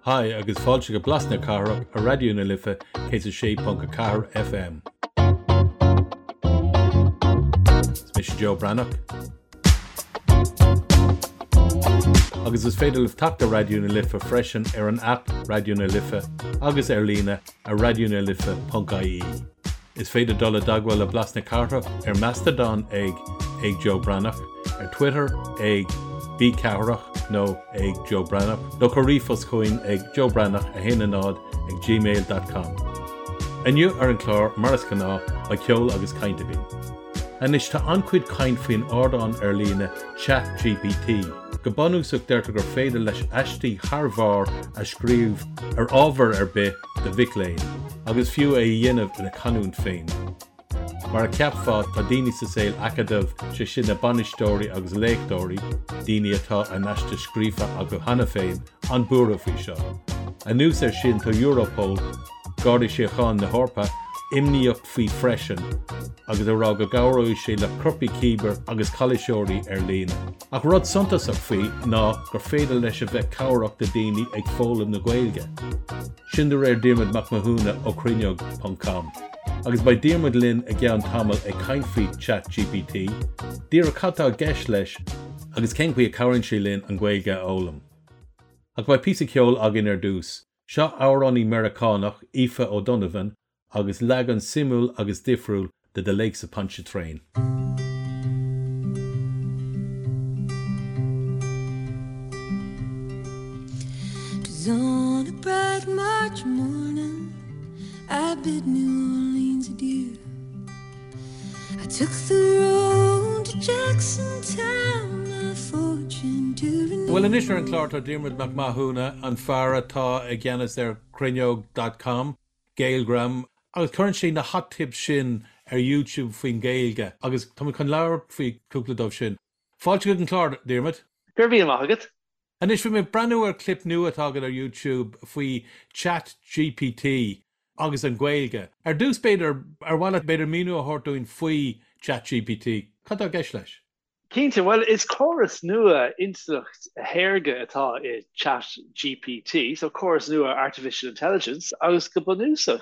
Hi agus fáilte go Blas na Cathrach ar Raidió na Life 106.4 FM. Is mise Joe Breathnach. Agus is féidir libh teacht ar Raidió na Life freisin ar an aip Raidió na Life agus ar líne ar raidionalife.ie. Is féidir dul i dteagmháil le Blas na Cathrach ar Mastodon ag ag Joe Breathnach, ar Twitter ag B Cathrach nó ag Joe Breathnach, nó cuir ríomhphost chugainn ag joebreathnach 1 0 ag gmail dot com. Inniu ar an chlár, mar is gnáth, beidh ceol agus caint againn. Anois tá an-chuid caint faoin ardán ar líne Chat GPT. Go bunúsach deirtear gur féidir leis aistí thar bharr a scríobh ar ábhar ar bith do mhic léinn, agus fiú é a dhéanamh ina chanúint féin. Mar a cheapfá, tá daoine sa saol acadúil, sé sin na bainisteoirí agus léachtóirí, daoine atá a n-aiste scríofa acu cheana féin, an-buartha faoi seo. Anuas air sin tá Europol, Garda Síochána na hEorpa, imníoch faoi freisin agus ag rá go gcabhróidh sé le coirpigh cíbear agus calaoiseoirí ar líne. Ach rud suntasach faoi ná gur féidir leis a bheith cabhrach do daoine ag foghlaim na Gaeilge. Sin de réir Diarmuid Mac Mathúna ó Cruinneog ponc com. Agus beidh Diarmuid linn i gceann tamaill ag caint faoi Chat GPT, díreach cad tá i gceist leis agus cén chaoi a cabhraíonn sé linn an Ghaeilge a fhoghlaim. Ach beidh píosa ceoil againn ar dtús. Seo amhránaí Meiriceánach, Aoife O'Donovan, agus leagan suimiúil agus difriúil de The Lakes of Pontchartrain. 'Twas on a bright March morning I bid New Orleans adieu I took the road to Jackson Town My fortune to renew Bhuel anois ar an chlár tá Diarmuid Mac Mathúna, an fear atá i gceannas ar Cruinneog dot com. Gaelgram, agus cuireann sé na hot tips sin ar YouTube faoin Ghaeilge agus tá muid chun labhairt faoi cúpla dóibh sin. Fáilte chuig an chlár, Diarmuid. Go raibh míle maith agat. Anois, bhí mé ag breathnú ar clip nua atá agat ar YouTube faoi Chat GPT agus an Ghaeilge. Ar dtús, b'fhéidir, ar mhaith leat b'fhéidir míniú a thabhairt dúinn faoi Chat GPT? Cad tá i gceist leis? Cinnte, bhuel is córas nua intleacht shaorga atá i Chat GPT, so córas nua Artificial Intelligence, agus go bunúsach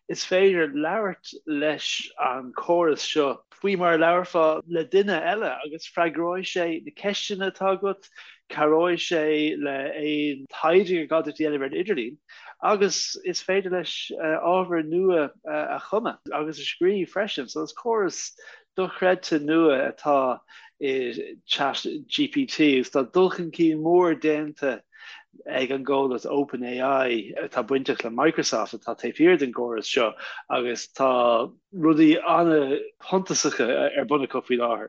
is féidir labhairt leis an córas seo faoi mar a labharfá le duine eile agus freagróidh sé na ceisteanna atá agat, cabhróidh sé le aon taighde gur gá duit a dhéanamh ar an idirlíon agus is féidir leis ábhar nua a chumadh agus a scríobh freisin. So is córas dochreidte nua atá i Chat GPT agus tá dul chun cinn mór déanta ag an gcomhlacht OpenAI atá bainteach le Microsoft atá taobh thiar den gcóras seo agus tá rudaí an-shuntasacha ar bun acu faoi láthair.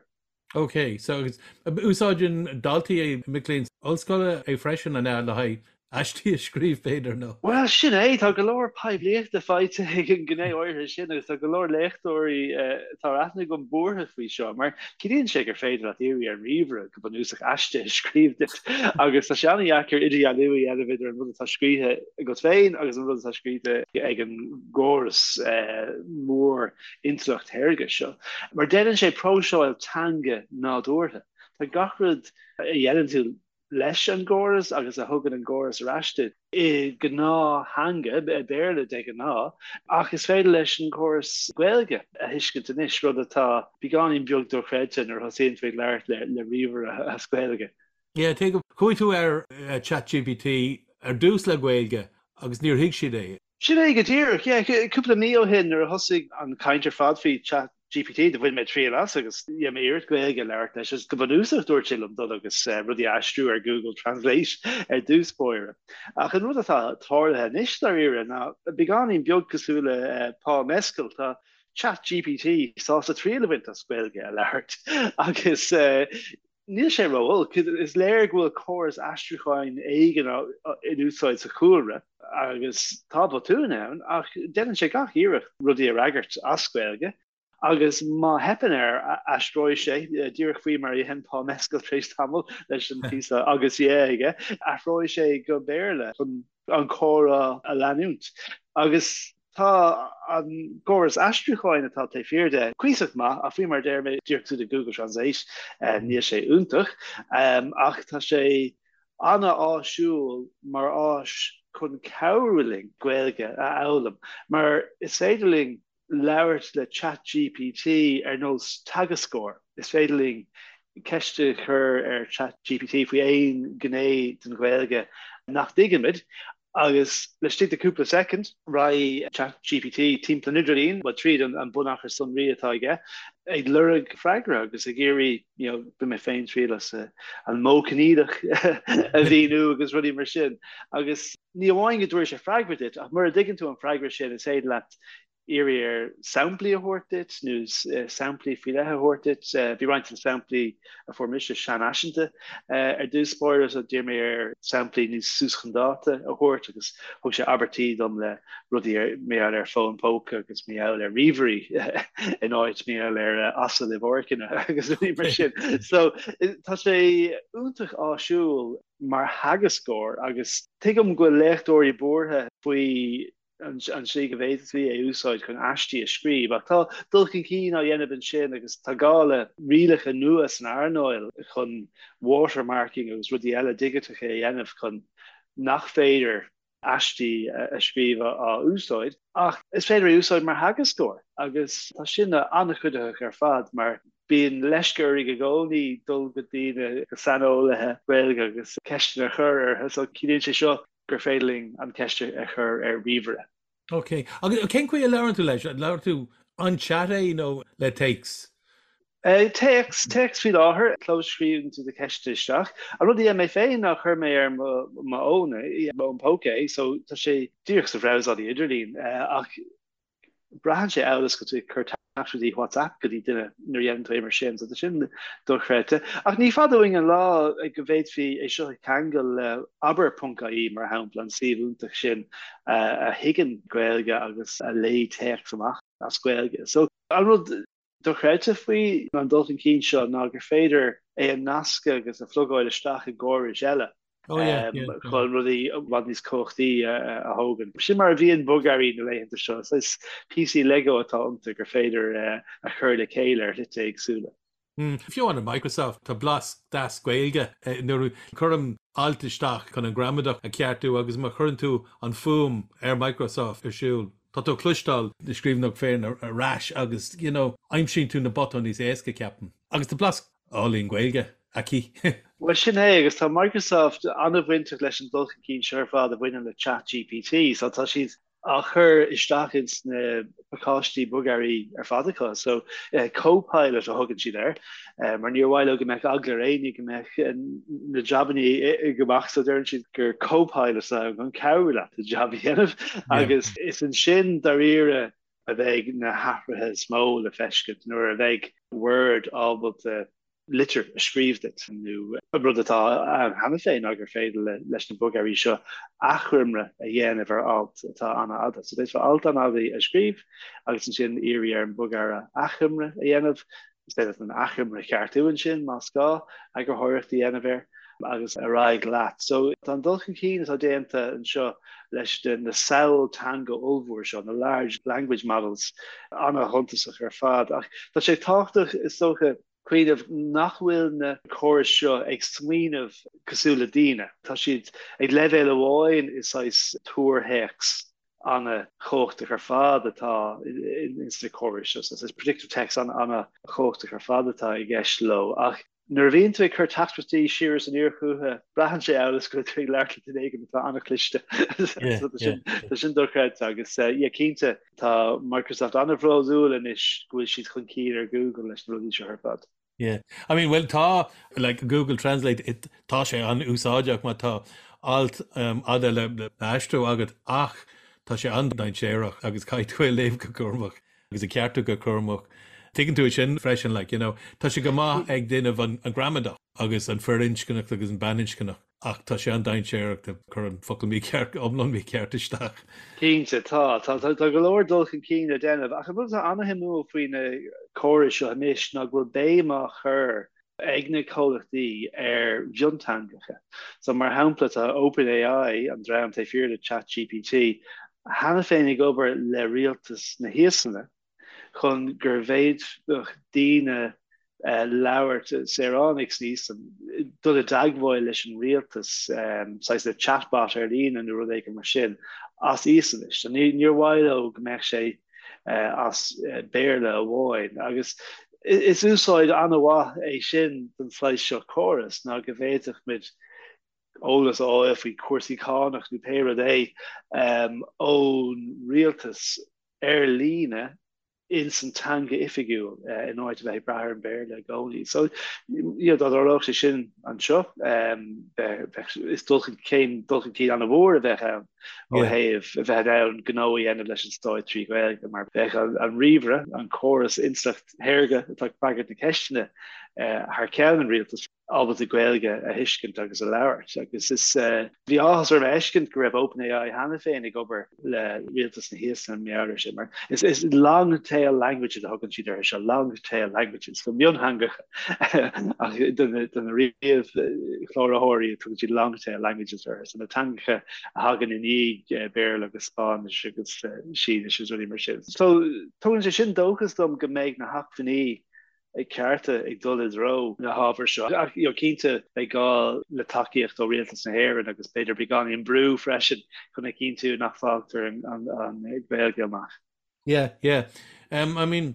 Ok, so agus úsáideann daltaí, mic léinn ollscoile é freisin an ea le haghaidh aistí a scríobh, b'fhéidir, nó? Bhuel, sin é, tá go leor poiblíochta faighte ag an ngné áirithe sin agus tá go leor léachtóirí atá ar aithne agam buartha faoi seo, mar ciallaíonn sé gur féidir leat iarraidh ar an ríomhaire go bunúsach aiste a scríobh duit agus tá sé an-dheacair idirdhealú a dhéanamh idir an rud atá scríofa agat féin agus an rud atá scríofa ag an gcóras mór intleacht shaorga seo, mar déanann sé próiseáil teanga nádúrtha. Tá gach rud a dhéanann tú leis an gcóras agus a thugann an gcóras ar ais duit i ngnáth-theanga, Béarla de ghnáth, ach is féidir leis an gcóras Gaeilge a thuiscint anois, rud atá beagáinín beag dochreidte nuair a thosaíonn tú ag labhairt le ríomhaire as Gaeilge. Yeah, tuigim. Chuaigh tú ar ChatGPT ar dtús le Gaeilge agus níor thuig siad é. Sin é go díreach, yeah. Cúpla mí ó shin nuair a thosaigh an chaint ar fad faoi Chat GPT, do bhain mé triail as agus dhein mé iarracht Gaeilge a labhairt leis agus go bunúsach dúirt sé liom dul agus rudaí a aistriú ar Google Translate ar dtús báire. Ach an rud atá tarlaithe anois dáiríre ná beagáinín beag cosúil le Paul Mescal, tá Chat GPT sásta triail a bhaint as Gaeilge a labhairt agus níl sé ró-olc. Is léir go bhfuil córas aistriúcháin éigin in úsáid sa chúlra agus tá botúin ann ach déanann sé gach iarracht rudaí a fhreagairt as Gaeilge agus má theipeann air aistreoidh sé, díreach faoi mar a dhein Paul Mescal tar éis tamaill leis an phíosa agus yeah aige, athróidh sé go Béarla chun an comhrá a leanúint. Agus tá an córas aistriúcháin atá taobh thiar de cuíosach maith, ach faoi mar a deir mé, díreach cosúil le Google Translate, níl sé iontach, ach tá sé. an-áisiúil mar áis chun cabhrú linn Gaeilge a fhoghlaim, mar is féidir linn labhairt le ChatGPT ar nós teagascóir. Is féidir linn ceist a chur ar ChatGPT faoi aon ghné den Ghaeilge nach dtuigimid agus laistigh de cúpla soicind, raghaidh ChatGPT timpeall an idirlín, bhuel, tríd an bunachar sonraí atá aige, ag lorg freagra agus ag iarraidh, you know, bhain mé féin triail as an modh coinníollach a mhíniú agus rudaí mar sin. Agus ní amháin go dtabharfaidh sé freagra duit, ach mura dtuigeann tú an freagra sin, is féidir leat iarraidh air samplaí a thabhairt duit nó samplaí faoi leith a thabhairt duit. Bhí roinnt de na samplaí a fuair mise seanfhaiseanta ar dtús báire so d'iarr mé air samplaí níos suas chun dáta a thabhairt agus thug sé abairtí dom le rudaí ar mar gheall ar fón póca agus mar gheall ar ríomhairí in áit mar gheall ar asail i bpáirceanna agus rudaí mar sin. So tá sé iontach áisiúil mar theagascóir agus tuigim go bhfuil léachtóirí buartha faoi an tslí go bhféadfaí é a úsáid chun aistí a scríobh, ach tá dul chun cinn á dhéanamh ansin agus tá gá le rialacha nua san earnáil chun watermarking agus rudaí eile digiteacha a dhéanamh chun nach féidir aistí a scríobh á úsáid. Ach is féidir é a úsáid mar theagascóir agus tá sin an-chuiditheach ar fad mar bíonn leisce orainn i gcónaí dul go dtí na saineolaithe Gaeilge agus ceisteanna a chur orthu so ciallaíonn sé seo gur féidir linn an cheist a chur ar ríomhaire. Ok. Agus cén chaoi a labhrann tú leis? Labhrann tú an chat é nó le téacs? Téacs, téacs faoi láthair. Clóscríobhann tú do cheisteanna isteach. An rud a dhein mé féin ná chuir mé ar mo fhón é, mo fhón póca é, so tá sé díreach sa bhrabhsálaí idirlín ach braitheann sé amhail is go bhfuil tú ag cur teachtaireachtaí WhatsApp go dtí duine nuair a dhéanann tú é mar sin, so tá sin dochreidte. Ach ní fada uainn an lá go bhféadfaí é seo a cheangal le abair.ie, mar shampla, an suíomh iontach sin a thuigeann Gaeilge agus a léigh téacs amach as Gaeilge. So an rud dochreidte faoi an dul chun cinn seo ná gur féidir é a nascadh agus a phlugáil isteach i gcórais eile chun rudaí i bhfad níos cumhachtaí a thógaint. Sin mar a bhíonn bogearraí na laethanta seo, is píosaí Lego atá iontu gur féidir a chur le chéile ar shlite éagsúla. Fiú amháin Microsoft, tá blas deas Gaeilge nuair a cuirim alt isteach chun an gramadach a cheartú agus má chuireann tú an fuaim ar Microsoft ar siúl, Tá tú ag cloisteáil do scríbhneoireacht féin ar ais agus, you know, aimsíonn tú na botúin níos éasca, ceapaim. Agus tá blas álainn Gaeilge aici. Bhuel, sin é, agus tá Microsoft an-bhainteach leis an dul chun cinn seo ar fad a bhaineann le ChatGPT, so tá siad á chur isteach ins na pacáistí bogearraí ar fad acu. So, Copilot a thugann siad air, mar níor mhaith leo go mbeadh eagla ar éinne go mbeadh na jabannaí ag imeacht, so deireann siad gur copilot atá ann chun cabhrú leat do jab a dhéanamh agus is ansin dáiríre a bheidh na hathruithe is mó le feiscint nuair a bheidh Word ábalta litir a scríobh duit nó an rud atá ann cheana féin ná gur féidir leis na bogearraí seo achoimre a dhéanamh ar alt atá an-fhada. So d'fhéadfá alt an-fhada a scríobh agus ansin iarraidh ar an bogearra achoimre a dhéanamh Is féidir leat an achoimre a cheartú ansin, más gá, eagarthóireacht a dhéanamh air agus ar aghaidh leat. So tá an dul chun cinn atá déanta anseo leis na samhail teanga ollmhór seo, na large language models, an-shuntasach ar fad. Ach tá sé tábhachtach, is dócha, cuimhneamh nach bhfuil na córais seo ag smaoineamh cosúil le daoine. Tá siad ag leibhéal amháin i saghas tuarthéacs an-chumhachtach ar fad atá ins na córais seo. So is predictive text an-chumhachtach ar fad atá i gceist leo. Ach nuair a bhíonn tú ag cur teachtaireachtaí siar is aniar chucu, braitheann sé amhail is go bhfuil tú ag labhairt le duine éigin atá an-chliste. Tá sin dochreidte agus yeah, cinnte tá Microsoft an-bhródúil anois go bhfuil siad chun cinn ar Google leis na rudaí seo ar fad. Yeah. I mean, well tá like Google Translate it, tá sé an-úsáideach má tá alt um, fhada le, le aistriú agat ach tá sé an-dainséarach agus caithfidh tú é a léamh go cúramach agus a cheartú go cúramach. Tuigeann tú sin freisin like, you know, tá sé go maith ag déanamh an, an gramadach agus an firinscneach agus an baininscneach. Ach tá sé an-dainséarach ag cur an focal mícheart, iomlán mícheart isteach. Cinnte, tá. Tá, tá go leor dul chun cinn le déanamh. Ach an rud atá an-shuimiúil faoi na córais seo anois ná go bhfuil béim á chur ag na comhlachtaí ar mhionteangacha. So, mar shampla, tá OpenAI, an dream taobh thiar de ChatGPT, cheana féin ag obair le rialtas na hÍoslainne chun go bhféadfadh daoine. Labhairt, saoránaigh san Íoslainn, dul i dteagmháil leis an rialtas, saghas le chatbot ar líne nó rud éigin mar sin, as Íoslainnis. So níor mhaith leo go mbeadh sé as Béarla amháin. Agus is úsáid an-mhaith é sin don saghas seo córas ná go bhféadfadh muid eolas a fháil faoi chúrsaí cánach nó pé rud é ón rialtas ar líne ins an teanga oifigiúil in áit a bheith ag brath ar an Bhéarla i gcónaí. So, you know, dá dtarlódh sé sin anseo, bheadh, is dul chun, céim dul chun cinn an-mhór a bheadh ann ó thaobh a bheith in ann gnó a dhéanamh leis an stát trí Ghaeilge, mar bheadh an ríomhaire, an córas intleacht shaorga atá ag freagairt na ceisteanna thar ceann an rialtais, ábalta Gaeilge a thuiscint agus a labhairt agus is bhí áthas orm a fheiscint go raibh OpenAI cheana féin ag obair le rialtas na hÍoslainne mar gheall air sin mar is is long tail languages a thugann siad orthu seo, long tail languages, so miontheangacha ach do na do na ríomhchláraitheoirí tugann siad long tail languages orthu, so na teangacha a thagann i ndiaidh Béarla agus Spáinnis agus Sínis agus rudaí mar sin. So tugann sé sin dóchas dom go mbeidh na hacmhainní cearta ag dul i dtreo na hábhair seo. Ach you know, cinnte beidh gá le tacaíocht ó Rialtas na hÉireann agus b'fhéidir beagáinín brú freisin chun a chinntiú nach bhfágtar an, an, an Ghaeilge amach. Yeah, yeah. Um, I mean,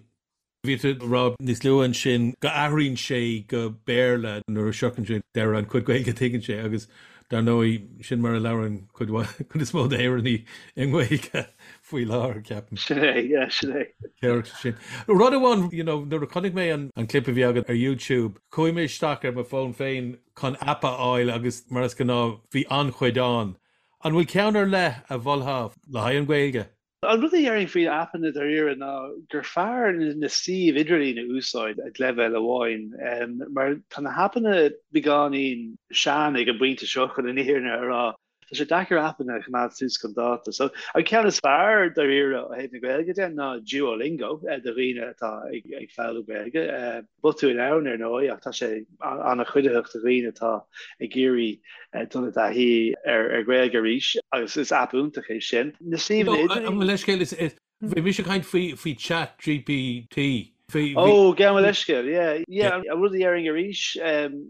bhí tú ag rá níos luaithe ansin go athraíonn sé go Béarla nuair a shroicheann sé deireadh an chuid Gaeilge a tuigeann sé agus dar ndóigh sin mar a labhrann cuid cuid is mó d'Éireannaigh i nGaeilge. faoi láthair, ceapaim. Sin é, yeah, sin é. Ceart sin. Rud amháin, you know, nuair a chonaic mé an an clip a bhí agat ar YouTube, chuaigh mé isteach ar mo fón féin chun aip a fháil agus mar is gnáth bhí an-chuid ann. An bhfuil ceann ar leith a mholfá le haghaidh an Ghaeilge? An rud a dhéarfainn faoi aipeanna dáiríre ná gur fearr na suímh idirlín a úsáid ag leibhéal amháin, mar tá na haipeanna beagáinín sean ag an bpointe seo chun an fhírinne a rá. Tá sé deacair aipeanna a choimeád suas chun dáta. So, an ceann is fearr dáiríre ó thaobh na Gaeilge de ná Duolingo do dhaoine atá ag foghlaim Gaeilge. Botúin ann, ar ndóigh, ach tá sé an-chuiditheach do dhaoine atá ag iarraidh dul i dtaithí ar Ghaeilge arís agus is aip iontach é sin. Na suíomhanna idirlín. Mo leithscéal, is Bhí mise ag caint faoi faoi Chat GPT. Bhí, bhí. Ó, gabh mo leithscéal, yeah, yeah. An rud a dhéarfainn arís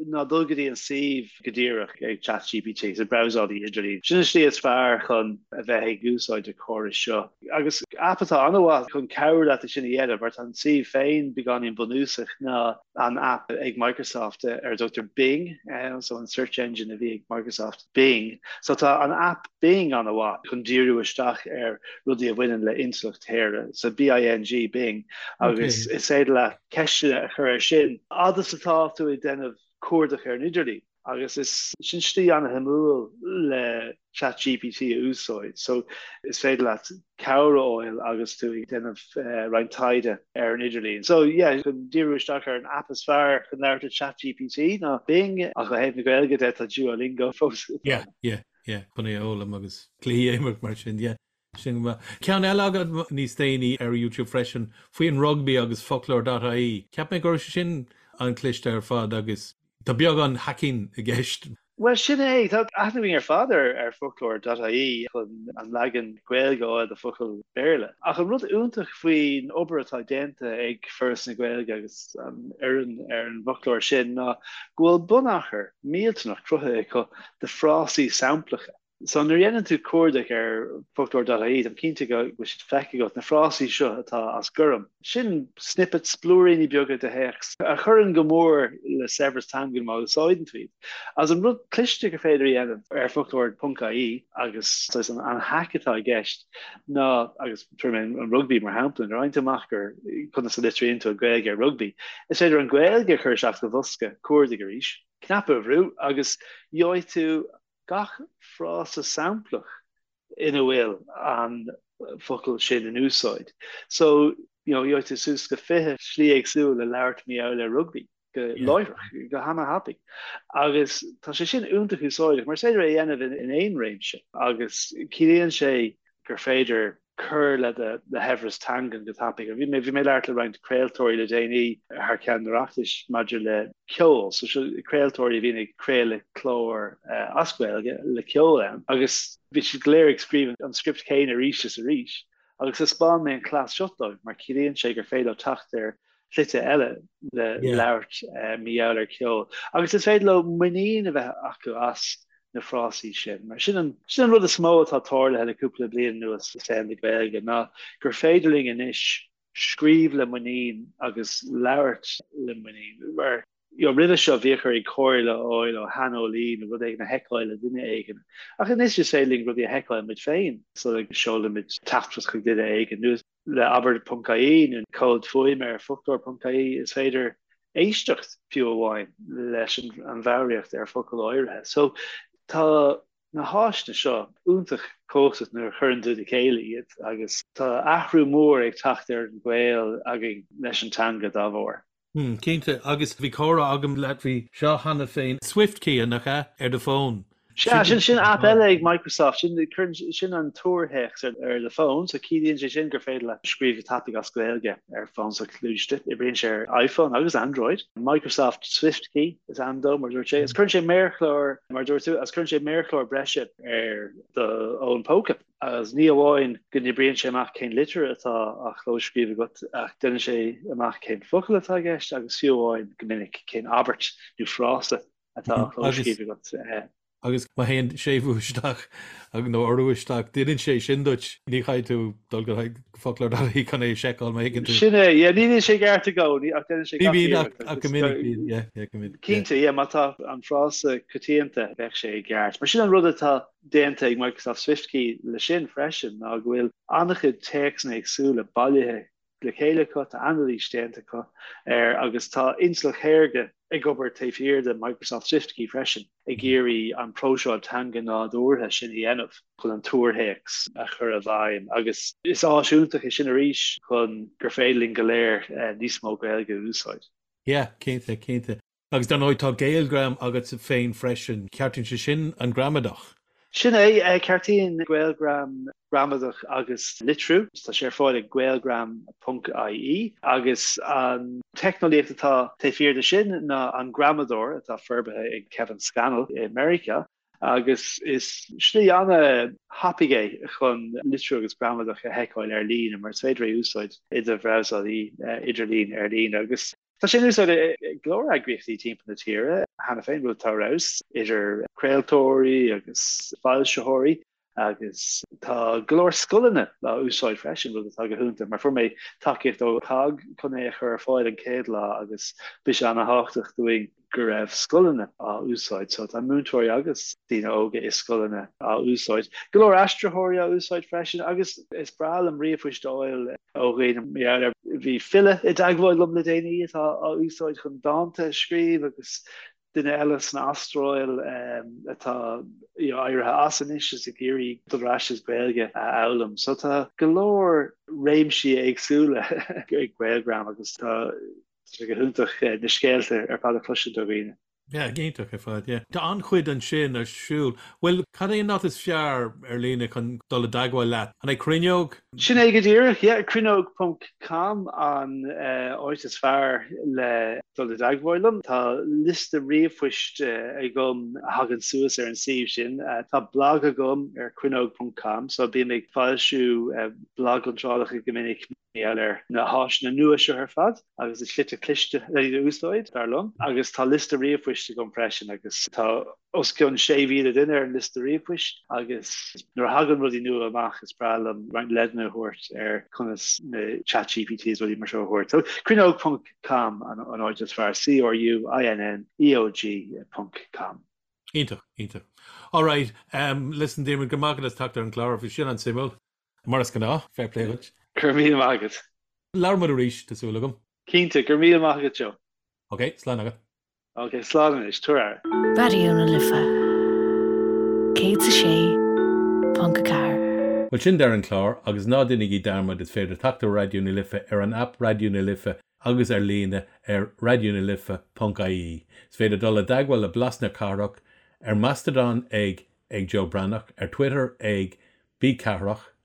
ná dul go dtí an suíomh go díreach ag Chat GPT, sa brabhsálaí idirlín. Sin an slí is fearr chun a bheith ag úsáid an chórais seo. Agus aip atá an-mhaith chun cabhrú leat é sin a dhéanamh, mar tá an suíomh féin beagáinín bunúsach, ná an aip ag Microsoft ar a dtugtar Bing, so an search engine a bhí ag Microsoft. Bing. So tá an aip Bing an-mhaith chun díriú isteach ar rudaí a bhaineann le intleacht shaorga, so B-I-N-G, Bing, agus is féidir leat ceisteanna a chur air sin fhad is atá tú ag déanamh cuardach ar an idirlíon. Agus is sin slí an-shuimiúil le ChatGPT a úsáid. So is féidir leat cabhair a fháil agus tú ag déanamh roinnt taighde ar an idirlíon. So yeah, chun díriú isteach ar an aip is fearr chun labhairt le ChatGPT ná Bing, ach ó thaobh na Gaeilge de tá Duolingo fós. Yeah, yeah, yeah, chun é a fhoghlaim agus cluichí a imirt mar sin, yeah. Sin go maith. Ceann eile agat níos déanaí ar YouTube freisin faoin rugbaí agus foclóir.ie. Cheap mé go raibh sé sin an-chliste ar fad agus Tá beagán hacking i gceist. Bhuel, sin é. Tá aithne againn ar fad ar foclóir dot ie chun an leagan Gaeilge a fháil de focal Béarla. Ach an rud iontach faoin obair atá déanta ag Foras na Gaeilge agus an fhoireann ar an bhfoclóir sin ná go bhfuil bunachar millteanach cruthaithe acu de frásaí samplacha. So nuair a dhéanann tú cuardach ar foclóir dot ie, táim cinnte go bhfuil siad feicthe agat, na frásaí seo atá as gorm. Sin snippets, blúiríní beaga de théacs a chuireann go mór le saibhreas teangan má úsáideann tú iad. Agus an rud cliste gur féidir a dhéanamh ar foclóir ponc ie agus saghas an hack atá i gceist ná, agus tabharfaidh mé an rugbaí mar shampla, nuair a fhaigheann tú amach gur conas a litríonn tú an Ghaeilge ar rugbaí, is féidir an Ghaeilge a chur isteach sa bhosca cuardaigh arís, cnaipe a bhrú agus gheobhaidh tú gach frása samplach ina bhfuil an focal sin in úsáid. So, you know, gheobhaidh tú suas go 20 slí éagsúil le labhairt mar gheall ar rugbaí go láithreach, go hana-thapaidh. Agus tá sé sin iontach úsáideach, mar is féidir é a dhéanamh in aon réimse agus ciallaíonn sé gur féidir cur le do shaibhreas teangan go tapaidh. Bhí mé bhí mé ag labhairt le roinnt craoltóirí le déanaí thar ceann an Oireachtais maidir le ceol, so seo craoltóirí a bhíonn ag craoladh cláir as Gaeilge le ceol ann agus bhí siad go léir ag scríobh an script céanna arís is arís agus thaispeáin mé an cleas seo dóibh mar ciallaíonn sé gur féidir leo teacht ar. Slite eile le labhairt mar gheall ar ceol agus is féidir leo muinín a bheith acu as na frásaí sin. Mar sin an sin an rud is mó atá tarlaithe le cúpla bliain anuas i saol na Gaeilge ná gur féidir linn anois scríobh le muinín agus labhairt le muinín. Mar you know, roimhe seo bhíodh orainn comhairle a fháil ó shaineolaí nó rud éigin a sheiceáil le duine éigin. Ach anois is féidir linn rudaí a sheiceáil muid féin sula seolaimid teachtaireacht chuig duine éigin nó le abair ponc ie nó comhad fuaime ar foclóir ponc ie is féidir éisteacht fiú amháin leis an bhfoghraíocht ar focail áirithe. So tá na háiseanna seo iontach cumhachtach nuair a chuireann tú le chéile iad agus tá athrú mór ag teacht ar an ghaol againn leis an teanga dá bharr. Hmm, cinnte. Agus bhí comhrá agam leat faoi seo cheana féin. SwiftKey, nach ea, ar do fón. Sea, sin sin aip eile ag Microsoft, sin cuireann sin an tuarthéacs ar ar do fón, so ciallaíonn sé sin gur féidir leat scríobh go tapaidh as Gaeilge ar fón soghluaiste. Oibríonn sé ar iPhone agus Android. Microsoft SwiftKey is ainm dó, mar a dúirt sé. Agus cuireann sé méarchlár, mar a dúirt tú, agus cuireann sé méarchlár breise ar do fhón póca. Agus ní amháin go n-oibríonn sé amach cén litir atá á chlóscríobh agat, ach déanann sé amach cén focal atá i gceist agus fiú amháin, go minic, cén abairt nó frása atá á chlóscríobh agat. Agus má théann séimhiú isteach nó urú isteach, déanann sé sin duit, ní chaithfidh tú dul go foclóir dot ie chun é a sheiceáil má thuigeann tú. Sin é, yeah, ní bhíonn sé i gceart i gcónaí ach déanann sé gach iarracht. Ní bhíonn ach go minic bíonn, yeah, yeah, go minic. Cinnte, yeah, má tá an frása coitianta bheadh sé i gceart. Mar sin an rud atá déanta ag Microsoft SwiftKey le sin freisin ná go bhfuil an-chuid téacsanna éagsúla bailithe le chéile acu, tá anailís déanta acu air agus tá intleacht shaorga ag obair taobh thiar de Microsoft SwiftKey freisin ag iarraidh an próiseáil teanga nádúrtha sin a dhéanamh chun an tuarthéacs a chur i bhfeidhm agus is áis iontach é sin arís chun gur féidir linn go léir níos mó Gaeilge a úsáid. Yeah, cinnte, cinnte. Agus dar ndóigh tá GaelGram agat féin freisin, ceartaíonn sé sin an gramadach? Sin é, ceartaíonn GaelGram gramadach agus litriú. Tá sé ar fáil ag gaelgram ponc ie agus an teicneolaíocht atá taobh thiar de sin ná an gramadóir atá forbartha ag Kevin Scannell i Meiriceá agus is slí an-thapaidh é chun litriú agus gramadach a sheiceáil ar líne mar is féidir é a úsáid i do bhrabhsálaí idirlín ar líne agus Tá sé in úsáid ag go leor eagraíochtaí timpeall na tíre cheana féin, rud atá ar fheabhas, idir craoltóirí agus foilsitheoirí agus tá go leor scoileanna á úsáid freisin, rud atá go hiontach mar fuair mé tacaíocht ó COGG chun é a chur ar fáil an chéad lá agus bhí sé an-thábhachtach dúinn go raibh scoileanna á úsáid. So tá múinteoirí agus daoine óga i scoileanna á úsáid. Go leor aistritheoirí á úsáid freisin agus is breá liom ríomhphoist a fháil ó dhaoine mar gheall air. Bhí file i dteagmháil liom le déanaí atá á úsáid chun dánta a scríobh agus duine eile san Astráil atá éirithe as anois is ag iarraidh dul ar ais is Gaeilge a fhoghlaim. So tá go leor réimsí éagsúla ag GaelGram agus tá sé go hiontach na scéalta ar fad a chloisint ó dhaoine. Yeah, iontach ar fad, yeah. Tá an-chuid ansin ar siúl. Bhuel, cad é an áit is fearr ar líne chun dul i dteagmháil leat? An é Cruinneog? Sin é go díreach, yeah. Cruinneog ponc com an áit is fearr le dul i dteagmháil liom. Tá liosta ríomhphoist agam a thagann suas ar an suíomh sin. Tá blag agam ar cruinneog ponc com, so bím ag foilsiú blagiontrálacha go minic. gheall ar na háiseanna nua seo ar fad agus na slite cliste le iad a úsáid, dar liom. Agus tá liosta ríomhphoist agam freisin agus tá os cionn 6,000 duine ar an liosta ríomhphoist agus nuair a thagann rudaí nua amach is breá liom roinnt leideanna a thabhairt ar conas na ChatGPT is rudaí mar seo a thabhairt. So cruinneog ponc com an áit is fearr, C-R-U-I-N-N-E-O-G ponc com. Iontach, iontach. Alright, um, listen Diarmuid, go raibh maith agat as teacht ar an gclár, bhí sin an-suimiúil. Mar is gnáth, fair play duit. Go raibh míle maith agat. Labhróidh muid arís, tá súil agam. Cinnte, go raibh míle maith agat Joe. Ok, slán agat. Ok, slán anois, tabhair aire. Raidió na Life 106.4. Bhuel sin deireadh an chláir agus ná déanaigí dearmad is féidir teacht ar Raidió na Life ar an aip Raidió na Life agus ar líne ar raidionalife.ie. Is féidir dul i dteagmháil le Blas na Cathrach ar Mastodon ag ag Joe Breathnach, ar Twitter ag B Cathrach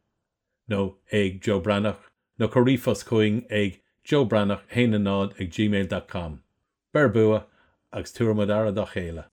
nó ag Joe Breathnach nó cuir ríomhphost chugainn ag joebreathnach 1 0 ag gmail dot com. Beir bua agus tabharfaimid aire dá chéile.